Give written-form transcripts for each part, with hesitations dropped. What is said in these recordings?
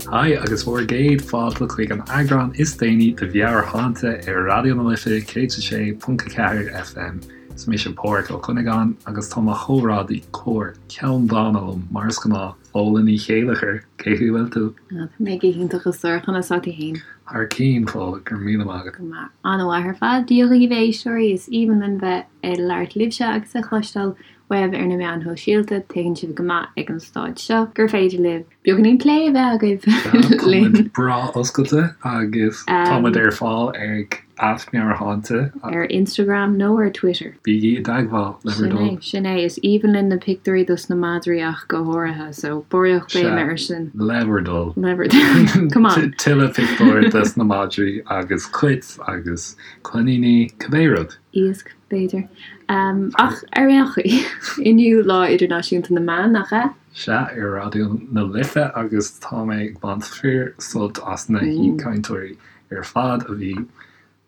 Haigh agus bhur gcéad fáilte chuig an eagrán is déanaí de Mheabhairshláinte ar Raidió na Life 106.4 FM. Is mise Pádhraic Ó Cuinneagáin agus tá mo chomrádaí cóir ceanndána liom mar is gnáth, Fódhla Ní Chéilleachair. Cén chaoi a bhfuil tú? Tá mé go hiontach a stór, conas tá tú fhéin? Thar cinn, Fódhla, go raibh míle maith agat. Go maith. An-mhaith ar fad. Dia dhaoibh a éisteoirí, is aoibhinn linn bheith ag labhairt libhse agus ag cloisteáil uaibh ar na meáin shóisialta. Tuigeann sibh go maith ag an stáid seo gur féidir libh beagáinín plé a bheith agaibh linn. Tá muid breá oscailte agus tá muid ar fáil ag @meabhairshláinte. Ar Instagram nó ar Twitter. Bígí i dteagmháil, le bhur Sin é, dtoil. sin é. Is aoibhinn linn na pictiúirí dos na madraí ach go háirithe, so barraíocht Sea, béime air sin. le bhur dtoil. Le bhur dtoil. Come on. Tuilleadh pictiúr dos na madraí agus cait agus coiníní, cibé rud. Iasc, b'fhéidir. Ach ar aon chaoi, inniu Lá Idirnáisiúnta na mBan, nach ea? Sea, ar Raidió na Life agus tá mé ag baint fíor sult as na haoichainteoirí ar fad a bhí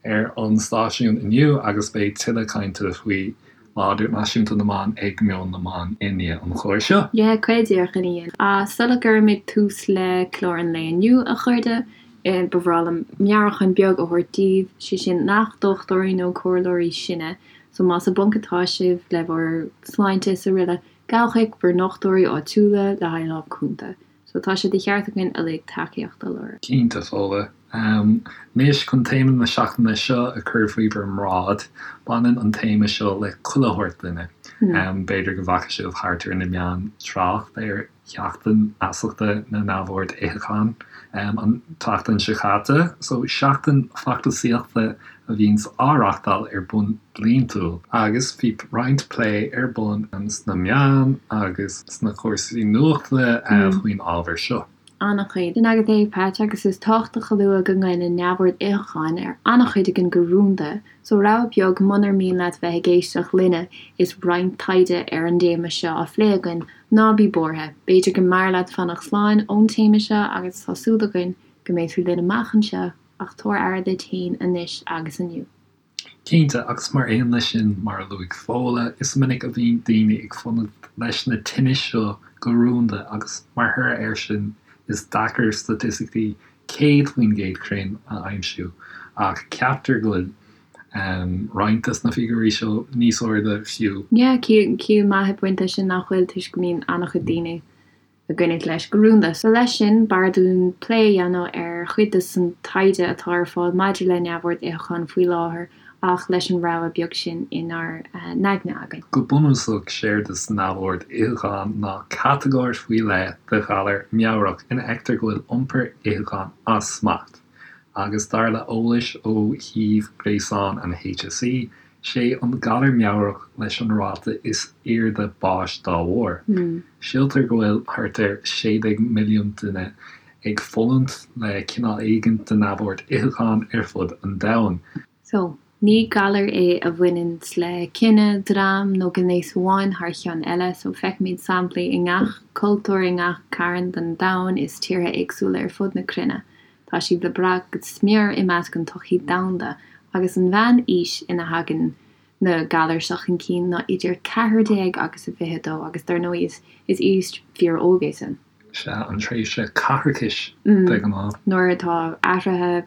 ar an stáisiún inniu agus beidh tuilleadh cainte faoi Lá Idirnáisiúnta na mBan ag Meon na mBan i ndiaidh an chláir seo. Yeah, caol díreach ina dhiaidh. Ach sula gcuirimid tús le clár an lae inniu, a chairde, ba bhreá liom meabhrúchán beag a thabhairt daoibh, sé sin nach dochtúirí nó comhairleoirí sinne, so más i bponc atá sibh le bhur sláinte is aroile, gabh chuig bhur ndochtúirí áitiúla le haghaidh lámh cúnta. So tá sé de cheart againn uilig tacaíocht a lorg. Cinnte, Fódhla. Anois, chun téama na seachtaine seo a chur faoi bhur mbráid, baineann an téama seo le chuile shórt duine. B'fhéidir go bhfaca sibh thart ar na meáin trácht ar Sheachtain Fheasachta na Neamhord Itheacháin an tseachtain seo caite. So, seachtain feachtasaíochta a bhíonns á reachtáil ar bun bliantúil agus bhí roinnt plé ar bun sna meáin agus sna cúrsaí nuachta faoin ábhar seo. An-chuid. Sin agat é, Pat, agus is tábhachtach a lua go ngoilleann neamhord itheacháin ar an-chuid againn go rúnda, so rabhadh beag munar mian leat bheith ag éisteacht linne is roinnt taighde ar an dtéama seo á phlé againn, ná bí buartha, b'fhéidir go mb'fhearr leat fanacht slán ón téama seo agus tá súil againn go mbeidh tú linn amach anseo. Ach tabhair aire duit féin anois agus inniu. Cinnte, agus mar aon leis sin, mar a luaigh Fódhla, is minic a bhíonn daoine ag fulaingt leis na tinnis seo go rúnda agus mar thoradh air sin is deacair staitisticí 100% cruinn a aimsiú, ach ceaptar go bhfuil roinnt des na figiúirí seo níos airde fiú. Yeah, ciall maith ag baint leis sin nach bhfuil toisc go mbíonn an-chuid daoine ag goilliúint leis go rúnda. So leis sin, b'fhearr dúinn plé a dhéanamh ar chuid de san taighde atá ar fáil maidir le neamhord itheacháin faoi láthair ach leis an rabhadh beag sin inár n-aigne againn. Go bunúsach, séard is neamhord itheacháin ná catagóir faoi leith de ghalar meabhrach ina fheictear go bhfuil iompar itheacháin as smacht, agus dar le eolais ó shuíomh gréasáin an HSE, Sé an galar meabhrach leis an ráta is airde báis dá bharr. Síltear go bhfuil thart ar 16 milliún duine ag fulaingt le cineál éigin de neamhord itheacháin ar fud an domhain. So, ní galar é a bhaineanns le cine, dream nó gnéas amháin thar cheann eile, so feicimid samplaí i ngach cultúr, i ngach cearn den domhan is tíortha éagsúla ar fud na cruinne. Tá siad le brath go smior i measc an tsochaí domhanda, agus an mheán aois ina thagann na galair seo chun cinn ná idir 14 agus 22, agus dar ndóigh is is aois fíor óg é sin. Sea, an tréimhse caithreachais de ghnáth. Nuair atá athruithe,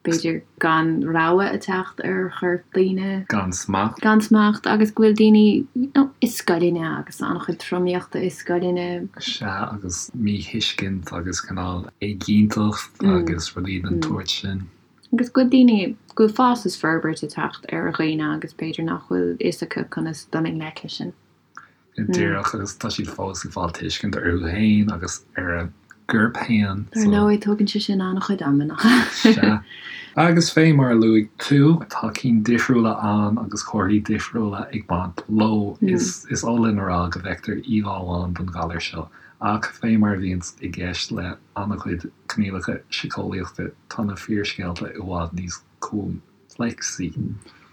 b'fhéidir gan rogha ag teacht ar chorp daoine. Gan smacht. Gan smacht, agus go bhfuil daoine, you know, i scoileanna agus an-chuid tromaíochta i scoileanna. Sea, agus míthuiscint agus cineál éiginnteacht agus rudaí den tsórt sin. Agus go bhfuil daoine, go bhfuil fás is forbairt ag teacht ar dhaoine agus b'fhéidir nach bhfuil fhios acu conas dul i ngleic leis sin. Go díreach, agus tá siad fós ag fáil tuiscint orthu féin agus ar a gcorp féin. Dar ndóigh, tógann sé sin an-chuid ama, nach ea? Sea. Agus fé mar a luaigh tú, tá cinn difriúla ann agus comharthaí difriúla ag baint leo. Is is oth linn a rá go bhfeictear íomhá amháin den ghalar seo, ach fé mar a bhíonns i gceist le an-chuid coinníollacha síceolaíochta, tá na fíorscéalta i bhfad níos coimpléacsaí.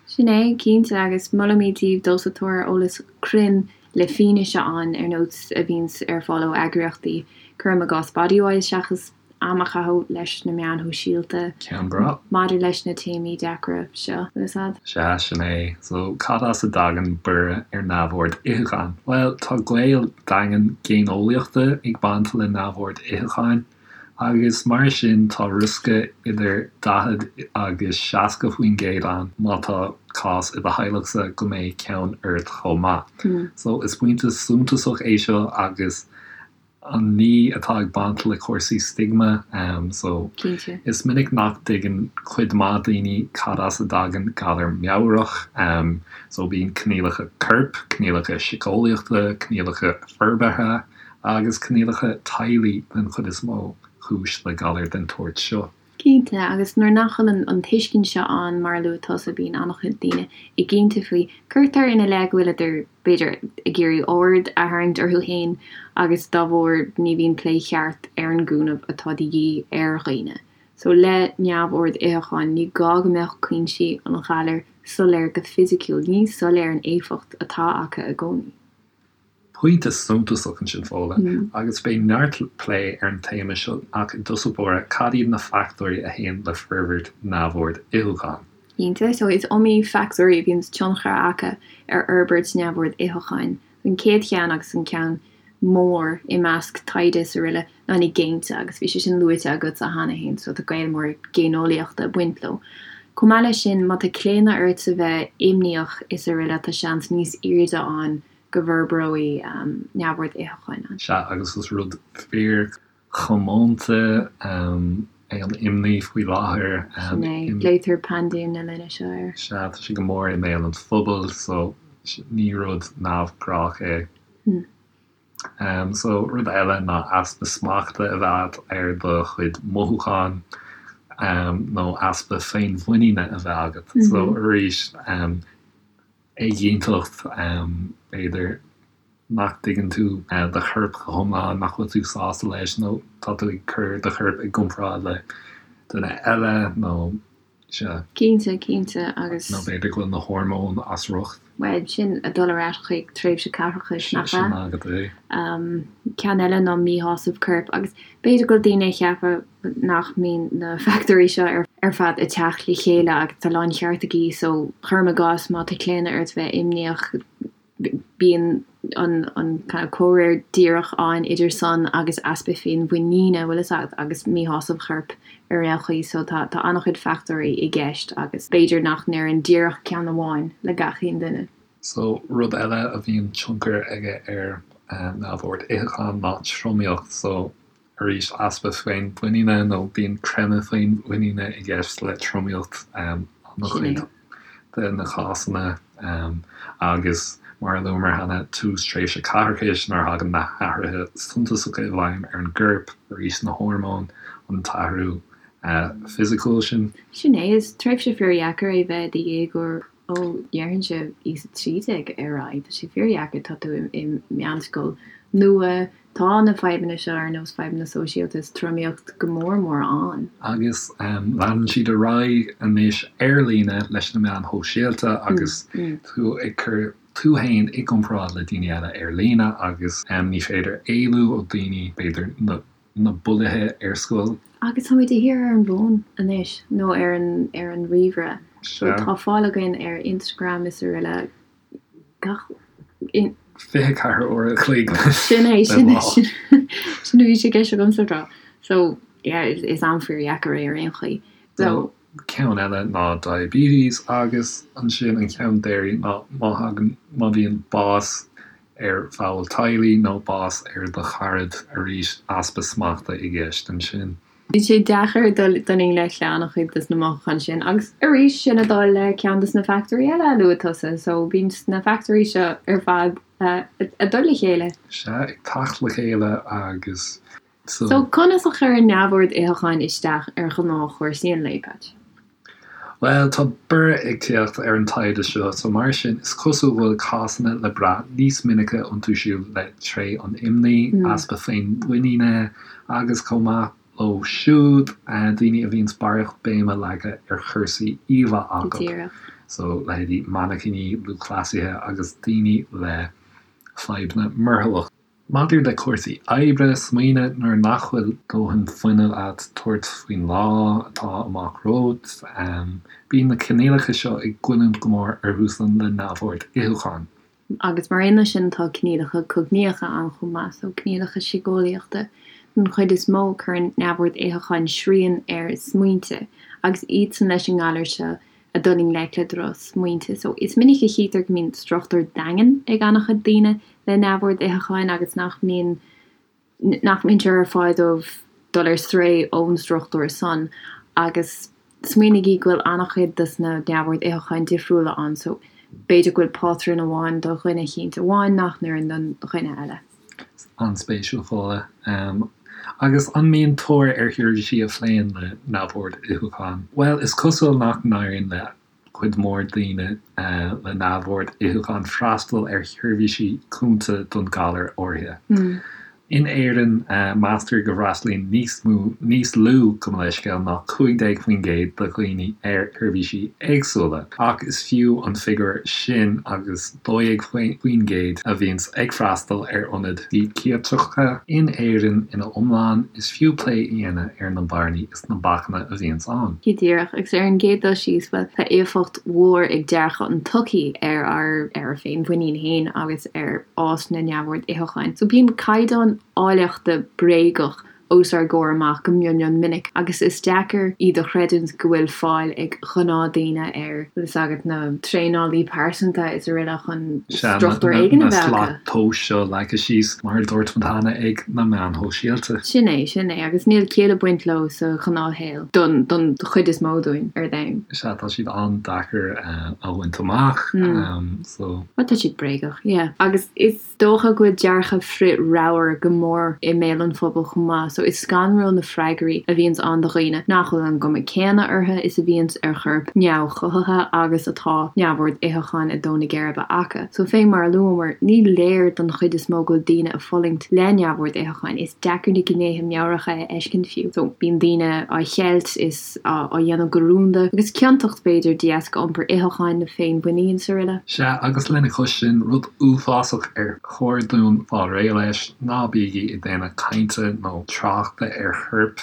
Sin é, cinnte, agus molaimid daoibh dul sa tóir ar eolas cruinn le fianaise ann, ar nós a bhíonns ar fáil ó eagraíochtaí, cuirim i gcás Bodywhys, seachas am a chaitheamh leis na meáin shóisialta Ceann breá. maidir leis na téamaí deacra seo. Sea, sin é. So, cad as a dtagann borradh ar neamhord itheacháin? Bhuel, tá gaol daingean géineolaíochta ag baint le neamhord itheacháin. Agus mar sin tá riosca idir 40 agus 60% ann má tá cás i do theaghlachsa go mbeidh ceann ort chomh maith. So is pointe suntasach é seo agus an ní atá ag baint le cúrsaí stigma so Cinnte. is minic nach dtuigeann cuid mhaith daoine cad as a dtagann galar meabhrach so bíonn coinníollacha coirp, coinníollacha síceolaíochta, coinníollacha forbartha agus coinníollacha teaghlaigh den chuid is mó cúis le galar den tsórt seo. Cinnte, agus nuair nach bhfuil an tuiscint seo ann, mar a luaigh tusa, bíonn an-chuid daoine éiginnte faoi. Cuirtear ina leith go bhfuileadar, b'fhéidir, ag iarraidh aird a tharraingt orthu féin agus dá bharr ní bhíonn plé cheart ar an gcúnamh atá de dhíth ar dhaoine. So le neamhord itheacháin, ní gá go mbeadh cúinsí an ghalair soiléir go fisiciúil, ní soiléir an éifeacht atá acu i gcónaí. Pointe suntasach ansin, Fódhla, agus beidh neart plé ar an téama seo ach i dtosach báire, cad iad na factóirí a théann le forbairt neamhord itheacháin? Cinnte, so is iomaí factóirí a bhíonn tionchar acu ar fhorbairt neamhord itheacháin. An chéad cheann agus an ceann mór i measc taighde is araile ná na géinte agus bhí sé sin luaite agatsa cheana féin so tá gaol mór géineolaíochta ag baint leo. Chomh maith leis sin, má tá claonadh ort a bheith imníoch is araile tá seans níos airde ann go bhforbróidh neamhord itheacháin ann. Sea, agus is rud fíorchomónta é an imní faoi láthair. Sin é, glaoitear paindéim na linne seo air. Sea, tá sé go mór i mbéal an phobail so ní rud neamhghnách é. So, rud eile ná easpa smachta a bheith agat ar do chuid mothúchán nó easpa féinmhuiníne a bheith agat. So, arís, éiginnteacht, b'fhéidir nach dtuigeann tú do chorp go hiomlán, nach bhfuil tú sásta leis nó tá tú ag cur do chorp i gcomparáid le duine eile nó Sea. Cinnte, cinnte, agus. Nó b'fhéidir go bhfuil na hormóin as riocht. Bhuel, sin ag dul ar ais chuig tréimhse caithreachais, nach ea? Sin agat é. Ceann eile ná míshásamh coirp, agus b'fhéidir go bhfuil daoine ag ceapadh nach mbíonn na factóirí seo ar fad ag teacht le chéile agus tá láncheart acu, so cuirim i gcás má tá claonadh ort bheith imníoch, bíonn an an kind of comhréir díreach ann idir san agus easpa féinmhuiníne, bhfuil fhios agat, agus míshásamh choirp ar aon chaoi. So tá tá an-chuid factóirí i gceist agus b'fhéidir nach n-oireann díreach ceann amháin le gach aon duine. So rud eile a bhíonn tionchar aige ar neamhord itheacháin ná tromaíocht. So Arís, easpa féinmhuiníne nó bíonn creimeadh féinmhuiníne i gceist le tromaíocht an-chuid de na cásanna agus, mar a luamar cheana, tús tréimhse caithreachais nuair a thagann na hathruithe suntasacha i bhfeidhm ar an gcorp, arís na hormóin, an t-athrú fisiciúil sin. Sin é, is tréimhse fíordheacair é bheith i do dhéagóir Ó, déarfainnse aois 13 ar aghaidh, tá sé fíordheacair, tá tú i meánscoil nua, tá na fadhbanna seo ar nós fadhbanna sóisialta is tromaíocht go mór mór ann. Agus leanann siad ar aghaidh anois ar líne leis na meáin shóisialta agus tú ag cur tú fhéin i gcomparáid le daoine eile ar líne agus ní féidir éalú ó daoine, b'fhéidir na. na bulaithe ar scoil. Agus táimid de shíor ar an bhfón anois, nó ar an ar an ríomhaire. So tá fáil againn ar Instagram is araile gach. 24 uair a chloig Sin é, sin é, sin sin a bhí sé i gceist agamsa a rá. So, yeah, is am fíordheacair é ar aon chaoi. So. Ceann eile ná diabetes agus ansin an ceann deiridh ná má thagann, má bhíonn bás ar bhall teaghlaigh nó bás ar do charad, arís easpa smachta i gceist ansin. Bhí sé deacair dul i ngleic le an-chuid des na mothúcháin sin agus arís sin ag dul le ceann des na factóirí eile a luaigh tusa so bíonn na factóirí seo ar fad ag dul le chéile. Sea, ag teacht le chéile agus so. So conas a chuireann neamhord itheacháin isteach ar ghnáthchúrsaí an lae, Patch? Bhuel, tá borradh ag tíocht ar an taighde seo, so mar sin, is cosúil go bhfuil cásanna le brath níos minice iontu siúd le tréith an imní, easpa féinmhuiníne, agus chomh maith leo siúd, daoine a bhíonns barraíocht béime leagtha ar chúrsaí íomhá acu, so leithéidí mainicíní, lúthchleasaithe agus daoine le fadhbanna murtallach. Maidir le cúrsaí oibre, smaoinigh nuair nach bhfuil dóthain fuinnimh agat tabhairt faoin lá atá amach romhat. Bíonn na coinníollacha seo ag goilliúint go mór orthusan le neamhord itheacháin. Agus mar aon leis sin tá coinníollacha cognaíocha ann chomh maith, so coinníollacha síceolaíochta. Don chuid is mó, cuireann neamhord itheacháin srian ar smaointe, agus iadsan leis an ngalar seo ag dul i ngleic le drochsmaointe. So, is minic a chítear go mbíonn struchtúr daingean ag an-chuid daoine le neamhord itheacháin agus nach mbíonn nach mbíonn sé ar fáil dóibh dul ar strae ón struchtúr san agus smaoinígí go bhfuil an-chuid dos na neamhord itheacháin difriúla ann so b'fhéidir go bhfuil pátrún amháin do dhuine eicínt amháin nach n-oireann don dhuine eile. An-spéisiúil, Fódhla. Agus an mbíonn tóir ar sheirbhísí a phléann le neamhord itheacháin? Bhuel, is cosúil nach n-éiríonn le cuid mhór daoine le neamhord itheacháin freastal ar sheirbhísí cúnta don ghalar áirithe. In Éirinn, meastar go bhfreastalaíonn níos mó, níos lú, gabh mo leithscéal, ná 15% de dhaoine ar sheirbhísí éagsúla, ach is fiú an figiúr sin agus 12% a bhíonns ag freastal ar ionaid síciatracha in Éirinn ina iomlán, is fiú plé a dhéanamh ar na bearnaí is na bacanna a bhíonns ann. Go díreach, agus ar an gcéad dul síos, bhuel, tá éifeacht mhór ag dearcadh an tsochaí ar ár ar ár féinmhuinín féin agus ar fhás na neamhord itheacháin. So bíonn caighdeán áilleachta bréagach os ár gcomhair amach go mion mion minic agus is deacair iad a chreidiúint go bhfuil fáil ag ghnáthdaoine ar, bhfuil fhios agat, na traenálaí pearsanta is araile chun struchtúr éigin a bheith acu. Na slat tomhais seo leagtha síos, mar a dúirt muid cheana, ag na meáin shóisialta. Sin é, sin é, agus níl ciall ag baint leo sa ghnáthshaol don don chuid is mó dúinn ar domhan. Sea, tá siad an-deacair a bhaint amach, so. Bhuel, tá siad bréagach, yeah. Agus is. dócha go bhfuil dearcadh frith-ramhar go mór i mbéal an phobail chomh maith so is scanrúil na freagraí a bhíonns ann do dhaoine nach bhfuil an gcuma céanna orthu is a bhíonns ar choirp neamhchothaithe agus atá neamhord itheacháin ag dó na geirbe acu. So fé mar a luamar, ní léir don chuid is mó go bhfuil daoine ag fulaingt le neamhord itheacháin, is deacair na gnéithe meabhracha a fheiscint fiú. So bíonn daoine á cheilt is. á dhéanamh go rúnda, agus ciontacht, b'fhéidir, de dheasca iompar itheacháin nó féinmhuinín is araile. Sea, agus lena chois sin, rud uafásach ar chóir dúinn fáil réidh leis, ná bígí ag déanamh cainte nó tráchta ar choirp.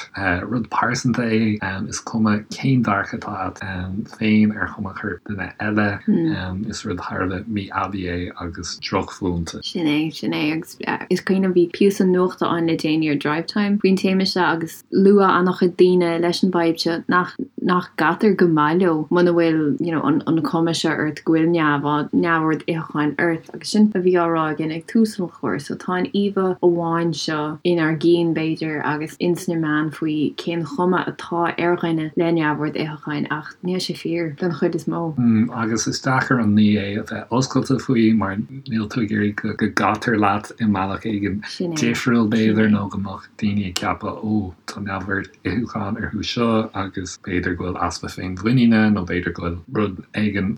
Rud pearsanta é, is cuma cén dearcadh atá agat féin ar chuma choirp duine eile, is rud thar a bheith mí-aibí é agus drochmhúinte. Sin é, sin é, agus is cuimhin liom bhí píosa nuachta ann le déanaí ar Drivetime faoin téama seo agus, Luaigh an-chuid daoine leis an bhfadhb seo nach nach gcaitear go maith leo muna bhfuil you know an an chuma seo ort go bhfuil neamh neamhord itheacháin ort agus sin a bhí á rá againn ag tús an chláir so tá an íomha amháin seo inár gcinn b'fhéidir agus ins na meáin faoi cén chuma atá ar dhuine le neamhord itheacháin ach níl sé fíor don chuid is mó. Agus is deacair an ní é a bheith oscailte faoi mar níl tú ag iarraidh go gcaitear leat i mbealach éigin difriúil b'fhéidir nó go mbeadh daoine ag ceapadh 'ó, tá neamhord itheacháin orthu seo agus b'fhéidir go bhfuil easpa féinmhuiníne nó b'fhéidir go bhfuil rud éigin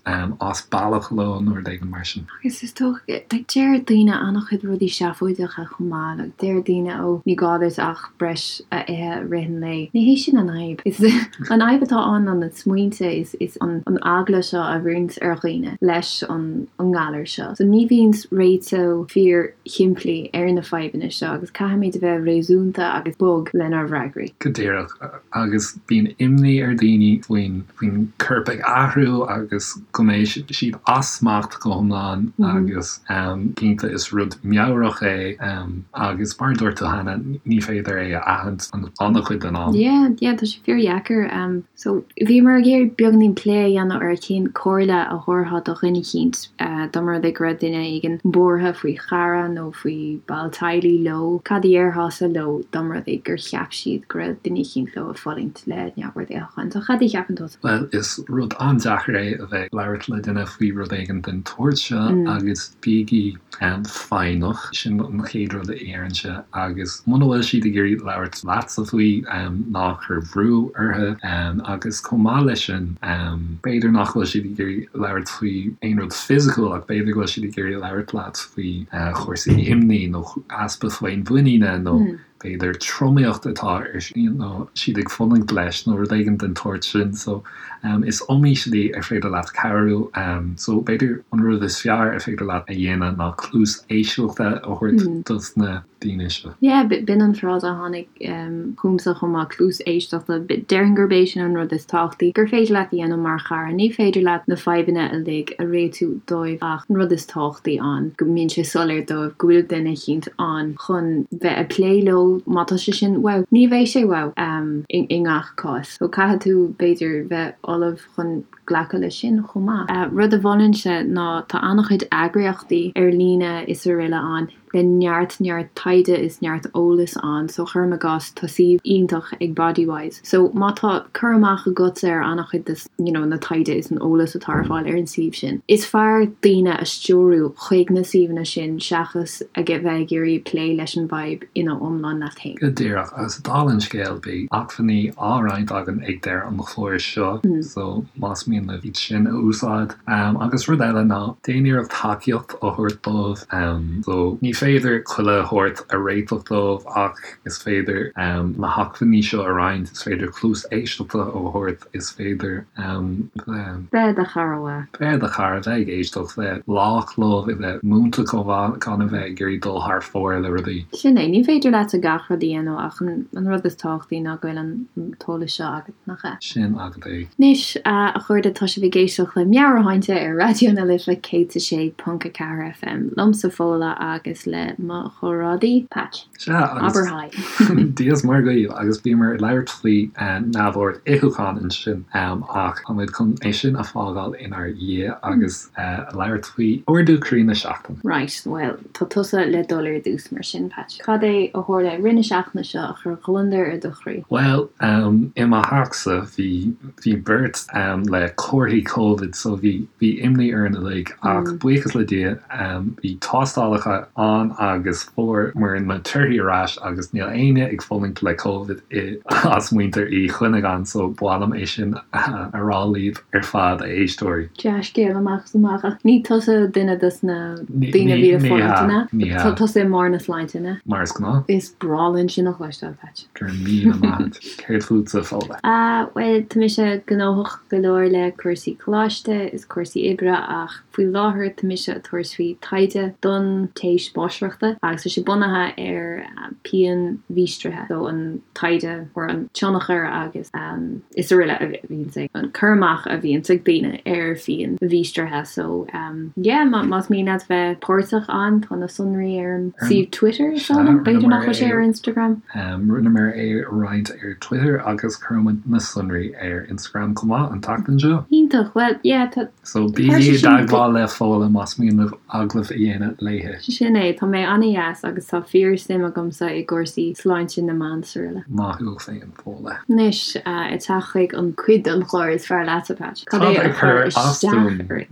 as bealach leo nó rud éigin mar sin. Agus is dócha, like, deir daoine an-chuid rudaí seafóideacha chomh maith, like, deir daoine 'ó, ní gá duit ach breis a ithe i rith an lae. Ní hé sin an fhadhb. Is an fhadhb atá ann ná na smaointe, is is an an eagla seo a bhíonns ar dhaoine leis an an ngalar seo. So ní bhíonn réiteach fíor shimplí ar na fadhbanna seo agus caithfimid a bheith réasúnta agus bog lenár bhfreagraí. Go díreach. Agus bíonn imní ar dhaoine faoin faoin corp ag athrú agus go mbeidh siad as smacht go hiomlán agus cinnte is rud meabhrach é agus mar a dúirt tú cheana ní féidir é a aithint an-chuid den am. Yeah, yeah, tá sé fíordheacair. So, bhíomar ag iarraidh beagainín plé a dhéanamh ar cén comhairle a thabharfá do dhuine eicínt dá mba rud é go raibh duine éigin buartha faoi chara nó faoi ball teaghlaigh leo, cad a dhéarfása leo dá mba rud é gur cheap siad go raibh duine eicínt leo ag fulaingt le neamhord itheacháin. So, cad a cheapann tusa? Bhuel, is rud an-deacair é a bheith ag labhairt le duine faoi rud éigin den tsórt seo agus bígí foighneach, sin an chéad rud a déarfainnse, agus muna bhfuil siad ag iarraidh labhairt leatsa faoi, ná cuir brú orthu. Agus chomh maith leis sin, b'fhéidir nach bhfuil siad ag iarraidh labhairt faoi aon rud fisiciúil ach b'fhéidir go bhfuil siad ag iarraidh labhairt leat faoi chúrsaí imní nó easpa féinmhuiníne nó b'fhéidir tromaíocht atá ar nó siad ag fulaingt leis nó rud éigin den tsórt sin. So is iomaí slí ar féidir leat cabhrú. So b'fhéidir an rud is fearr ar féidir leat a dhéanamh ná cluas éisteachta a thabhairt dos na daoine seo. Yeah, b'in an frása a tháinig chugamsa chomh maith, cluas éisteachta. Déarfainn gurb é sin an rud is tábhachtaí gur féidir leat a dhéanamh mar chara. Ní féidir leat na fadhbanna uilig a réitiú dóibh ach an rud is tábhachtaí ann go mbíonn sé soiléir dóibh go bhfuil duine eicínt ann chun bheith ag plé leo. So má tá sé sin wow, ní bheidh sé wow i ngach cás. So caithfidh tú b'fhéidir bheith ullamh chun glacadh leis sin chomh maith. Rud a mholfainnse ná tá an-chuid eagraíochtaí ar líne is araile ann le neart neart taighde is neart eolais ann so cuirim i gcás tá suíomh iontach ag Bodywhys so má tá cur amach agatsa ar an-chuid de you know na taighde is an eolas atá ar fáil ar an suíomh sin. Is fearr daoine a stiúrú chuig na suíomhanna sin seachas a bheith ag iarraidh plé leis an bhfadhb ina iomlán leat féin. Go díreach, agus dála an scéil beidh acmhainní á roinnt againn ag deireadh an chláir seo so más mian libh iad sin a úsáid. Agus rud eile ná déan iarracht tacaíocht a thabhairt dóibh. So ní féidir chuile shórt a réiteach dóibh ach is féidir na hacmhainní seo a roinnt, is féidir cluas éisteachta a thabhairt. Is féidir bheith. Bheith i do chara mhaith. Bheith i do chara, bheith ag éisteacht, bheith lách leo, bheith múinte chomh maith, gan a bheith ag iarraidh dul thar fóir le rudaí. Sin é, ní féidir leatsa gach rud a dhéanamh ach an rud is tábhachtaí ná go bhfuil an t-eolas seo agat, nach ea? Sin agat é. Anois, a chairde, tá sibh ag éisteacht le Meabhairshláinte ar Raidió na Life 106.4 FM, liomsa Fódhla agus le mo chomrádaí, Patch. Sea, agus Abair haigh. Dia is Muire dhaoibh, agus bhíomar ag labhairt faoi neamhord itheacháin ansin, ach táimid chun é sin a fágáil inár dhiaidh agus labhairt faoi ardú croí na seachtaine. Right, bhuel, tá tusa le dul ar dtús mar sin, Patch. Cad é a tharla i rith na seachtaine seo a chuir gliondar ar do chroí? Bhuel, i mo theachsa bhí Bhí beirt le comharthaí Covid so bhí bhí imní orainn uilig ach buíochas le Dia bhí tástálacha ann agus fuaireamar na torthaí ar ais agus níl éinne ag fulaingt le Covid i as muintir Uí Chuinneagáin so ba mhaith liom é sin a rá libh ar fad a éisteoirí. Dea-scéal amach is amach ach ní tusa duine dos na daoine a bhí ag fulaingt, an ea? Ní hea. Tá tusa i mbarr na sláinte, an ea? Mar is gnáth. Is breá linn sin a chloisteáil, Patch. Go raibh míle maith agat. Céard fútsa, Fódhla? Ah, bhuel, tá mise gnóthach go leor le cúrsaí coláiste is cúrsaí oibre ach faoi láthair tá mise ag tabhairt faoi taighde don téis máistreachta agus tá sé bunaithe ar pianmhíostraithe, so an taighde or an tionchar agus is araile a bhíonns ag, an cur amach a bhíonns ag daoine ar phianmhíostraithe so yeah, más mian leat bheith páirteach ann tá na sonraí ar an suíomh Twitter is dóigh liom, b'fhéidir nach bhfuil sé ar Instagram. Rinneamar é a roinnt ar Twitter agus cuirfimid na sonraí ar Instagram chomh maith an tseachtain seo. Iontach, bhuel yeah tá. So bígí i dteagmháil le Fódhla más mian libh agallamh a dhéanamh léi. Sin é, tá mé an-dheas agus tá fíor suim agamsa i gcúrsaí sláinte na mban is araile. Maith thú féin, Fódhla. Anois, ag teacht chuig an cuid den chlár is fearr leatsa, Patch. Cad é a chuir isteach ort?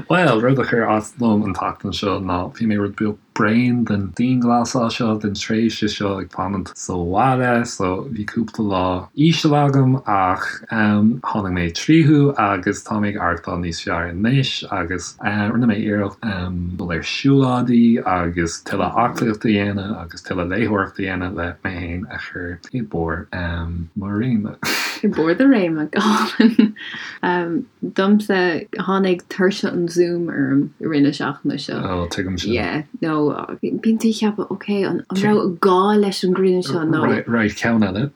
Bhuel, rud a chuir as dom an tseachtain seo ná bhí mé rud beag bréan den dianghlasáil seo, den tréimhse seo ag fanacht sa bhaile, so bhí cúpla lá íseal agam ach tháinig mé tríothu agus tá mé ag aireachtáil níos fearr anois agus rinne mé iarracht dul ar siúlóidí agus tuilleadh aclaíochta a dhéanamh agus tuilleadh léitheoireachta a dhéanamh le mé féin a chur i mbarr mo réime. I mbarr do réime, go hálainn. Domsa, tháinig tuirse an Zoom orm i rith na seachtaine seo. Ó, tuigim sin. Yeah, nó bíonn tú ag ceapadh, ok, an raibh gá leis an gcruinniú seo nó. Right, right, ceann eile.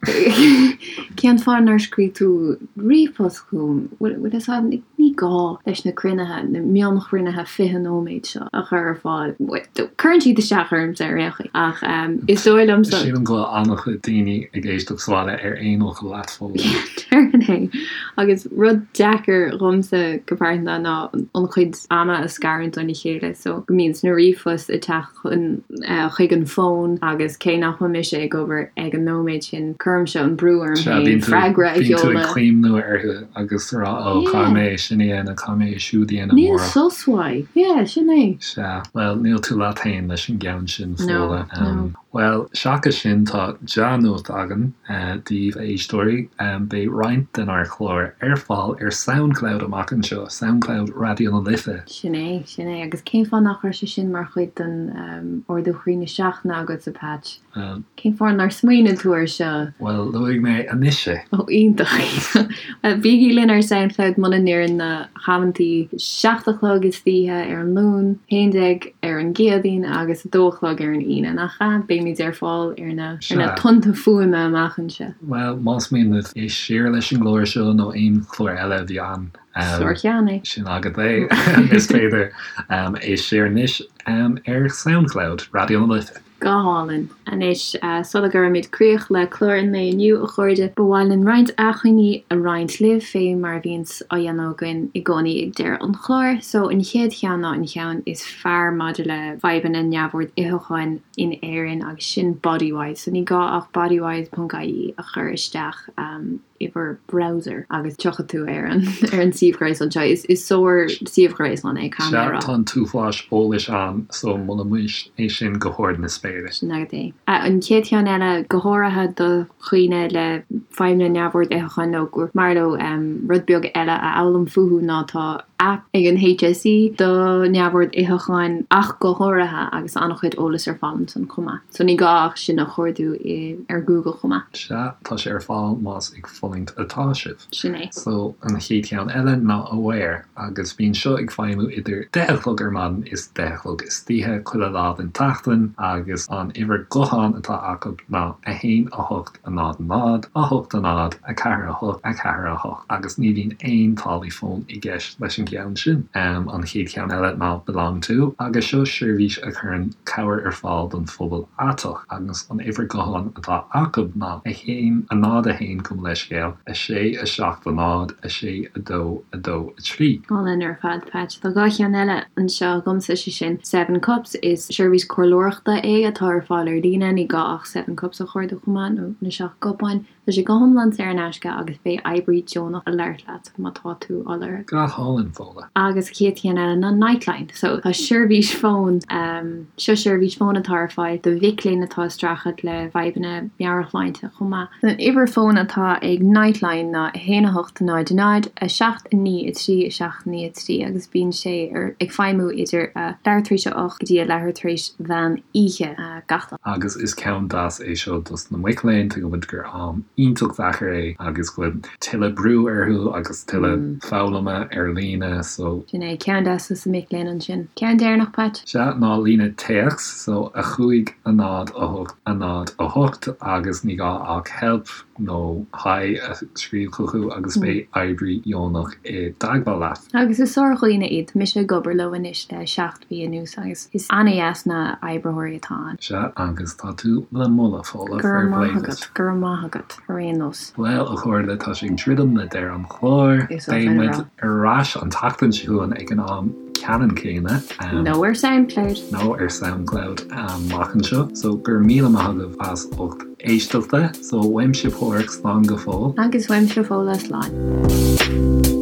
Cén fáth nár scríobh tú ríomhphost chugam? Bhfuil fhios agat, ní gá leis na cruinnithe, na mionchruinnithe 20 nóiméad seo a chur ar fáil. Cuireann siad isteach ormsa ar aon chaoi, ach is dóigh liomsa. Sílim go bhfuil an-chuid daoine ag éisteacht sa bhaile ar aon fhocal leat, Fódhla. Déarfainn é. Agus rud deacair dhomsa go pearsanta ná an chuid ama a scarúint óna chéile so go mbíonn na ríomhphoist ag teacht chun chuig an bhfón agus cé nach bhfuil mise ag obair ag an nóiméad sin cuirimse an brú orm féin freagra a sheoladh. Bíonn tú ag cuimhniú orthu agus rá ó caithfidh mé é sin a dhéanamh, caithfidh mé é siúd a dhéanamh Níl sos uaidh. Yeah, sin é. Sea, bhuel níl tú leat féin leis an gceann sin, Fódhla. No, no. Bhuel, seachas sin, tá dea-nuacht againn daoibh, a éisteoirí. Beidh roinnt denár chláir ar fáil ar Soundcloud amach anseo, Soundcloud Raidió na Life. Sin é, sin é. Agus cén fáth nach raibh sé sin mar chuid den ardú chroí na seachtaine agatsa, Patch? Cén fáth nár smaoinigh tú air seo? Bhuel, luaigh mé anois é. Ó, iontach. Bhuel, bígí linn ar Soundcloud muna n-oireann na hamantaí, 7 a chlog istoíche ar an Luan, 11 ar an gCéadaoin agus 2 a chlog ar an Aoine, nach ea? Beimid ar fáil ar na ar na tonnta fuaime amach anseo. Bhuel, más mian libh éist siar leis an gclár seo nó aon chlár eile a bhí ann, Sárcheann é. Sin agat é. Is féidir éist siar anois ar Soundcloud, Raidió na Life. Go hálainn. Anois, sula gcuirimid críoch le clár an lae inniu, a chairde, ba mhaith linn roinnt acmhainní a roinnt libh, fé mar a bhíonns á dhéanamh againn i gcónaí ag deireadh an chláir. So, an chéad cheann ná an cheann is fearr maidir le fadhbanna neamhord itheacháin in Éirinn agus sin Bodywhys. So, ní gá ach bodywhys ponc ie a chur isteach i bhur browser agus tiocfaidh tú ar an ar an suíomh gréasáin seo. Is is sár suíomh gréasáin é, caithfidh mé a rá. Sea, tá an t-uafás eolais ann so molaimís é sin go hard na spéire. Sin agat é. An chéad cheann eile, go háirithe do dhaoine le fadhbanna neamhord itheacháin nó gur maith leo rud beag eile a fhoghlaim fúthu ná tá aip ag an HSE do neamhord itheacháin ach go háirithe agus an-chuid eolais ar fáil ansan chomh maith. So ní gá ach sin a chuardú ar Google chomh maith. Sea, tá sé ar fáil más ag fulaingt atá sibh. Sin é. So an chéad cheann eile ná Aware agus bíonn seo ag feidhmiú idir deich a chlog ar maidin is deich a chlog istoíche chuile lá den tseachtain agus an uimhir gutháin atá acu ná 1 8 0 0 8 0 4 8 4 8 agus ní bhíonn aon táillí fóin i gceist leis an gceann sin. An chéad cheann eile ná Belong To agus seo seirbhís a chuireann cabhair ar fáil don phobal aiteach agus an uimhir gutháin atá acu ná 1 0 1 gabh mo leithscéal 6 7 0 6 2 2 3. Álainn ar fad, Patch. Tá 2 cheann eile anseo agamsa, sé sin Seven Cups. Is seirbhís comhairleoireachta é atá ar fáil ar líne, ní gá ach Seven Cups a chuardú chomh maith, nó na seacht gcupán. Tá sé go hiomlán saor in aisce agus beidh oibrí deonach ag labhairt leat má tá tú á lorg. Go hálainn, Fódhla. Agus chéad cheann eile ná Nightline. So tá seirbhís fóin, seo seirbhís fóin atá ar fáil do mhic léinn atá ag streachailt le fadhbanna meabhairshláinte chomh maith. An uimhir fóin atá ag Nightline ná 1 8 0 0 7 9 3 7 9 3 agus bíonn sé ar ag feidhmiú idir a leathuair tar éis a 8 go dtí a leathuair tar éis mheán oíche gach lá. Agus is ceann deas é seo dos na mic léinn, tuigeann muid gur am iontach deacair é agus go bhfuil tuilleadh brú orthu agus tuilleadh foghlama ar líne so. Sin é, ceann deas dos na mic léinn ansin. Ceann deireanach, Pat? Sea, ná líne téacs, so 5 0 8 0 8 agus ní gá ach help nó hi a scríobh chucu agus beidh oibrí deonach i dteagmháil leat. Agus is sár-dhaoine iad, tá mise ag obair leo anois le 7 mhí anuas agus is an-dheas na oibritheoirí atá ann. Sea, agus tá tú le moladh, Fódhla, Go raibh maith agat, go raibh maith agat, ar aon nós. Bhuel, a chairde, tá sé ag druidim le deireadh an chláir. Beidh muid ar ais an tseachtain seo chugainn ag an am ceannann céanna. Nó ar Soundcloud. Nó ar Soundcloud amach anseo. So, go raibh míle maith agaibh as ucht éisteachta. So, uaimse Páraic, slán go fóill. Agus uaimse Fódhla, slán.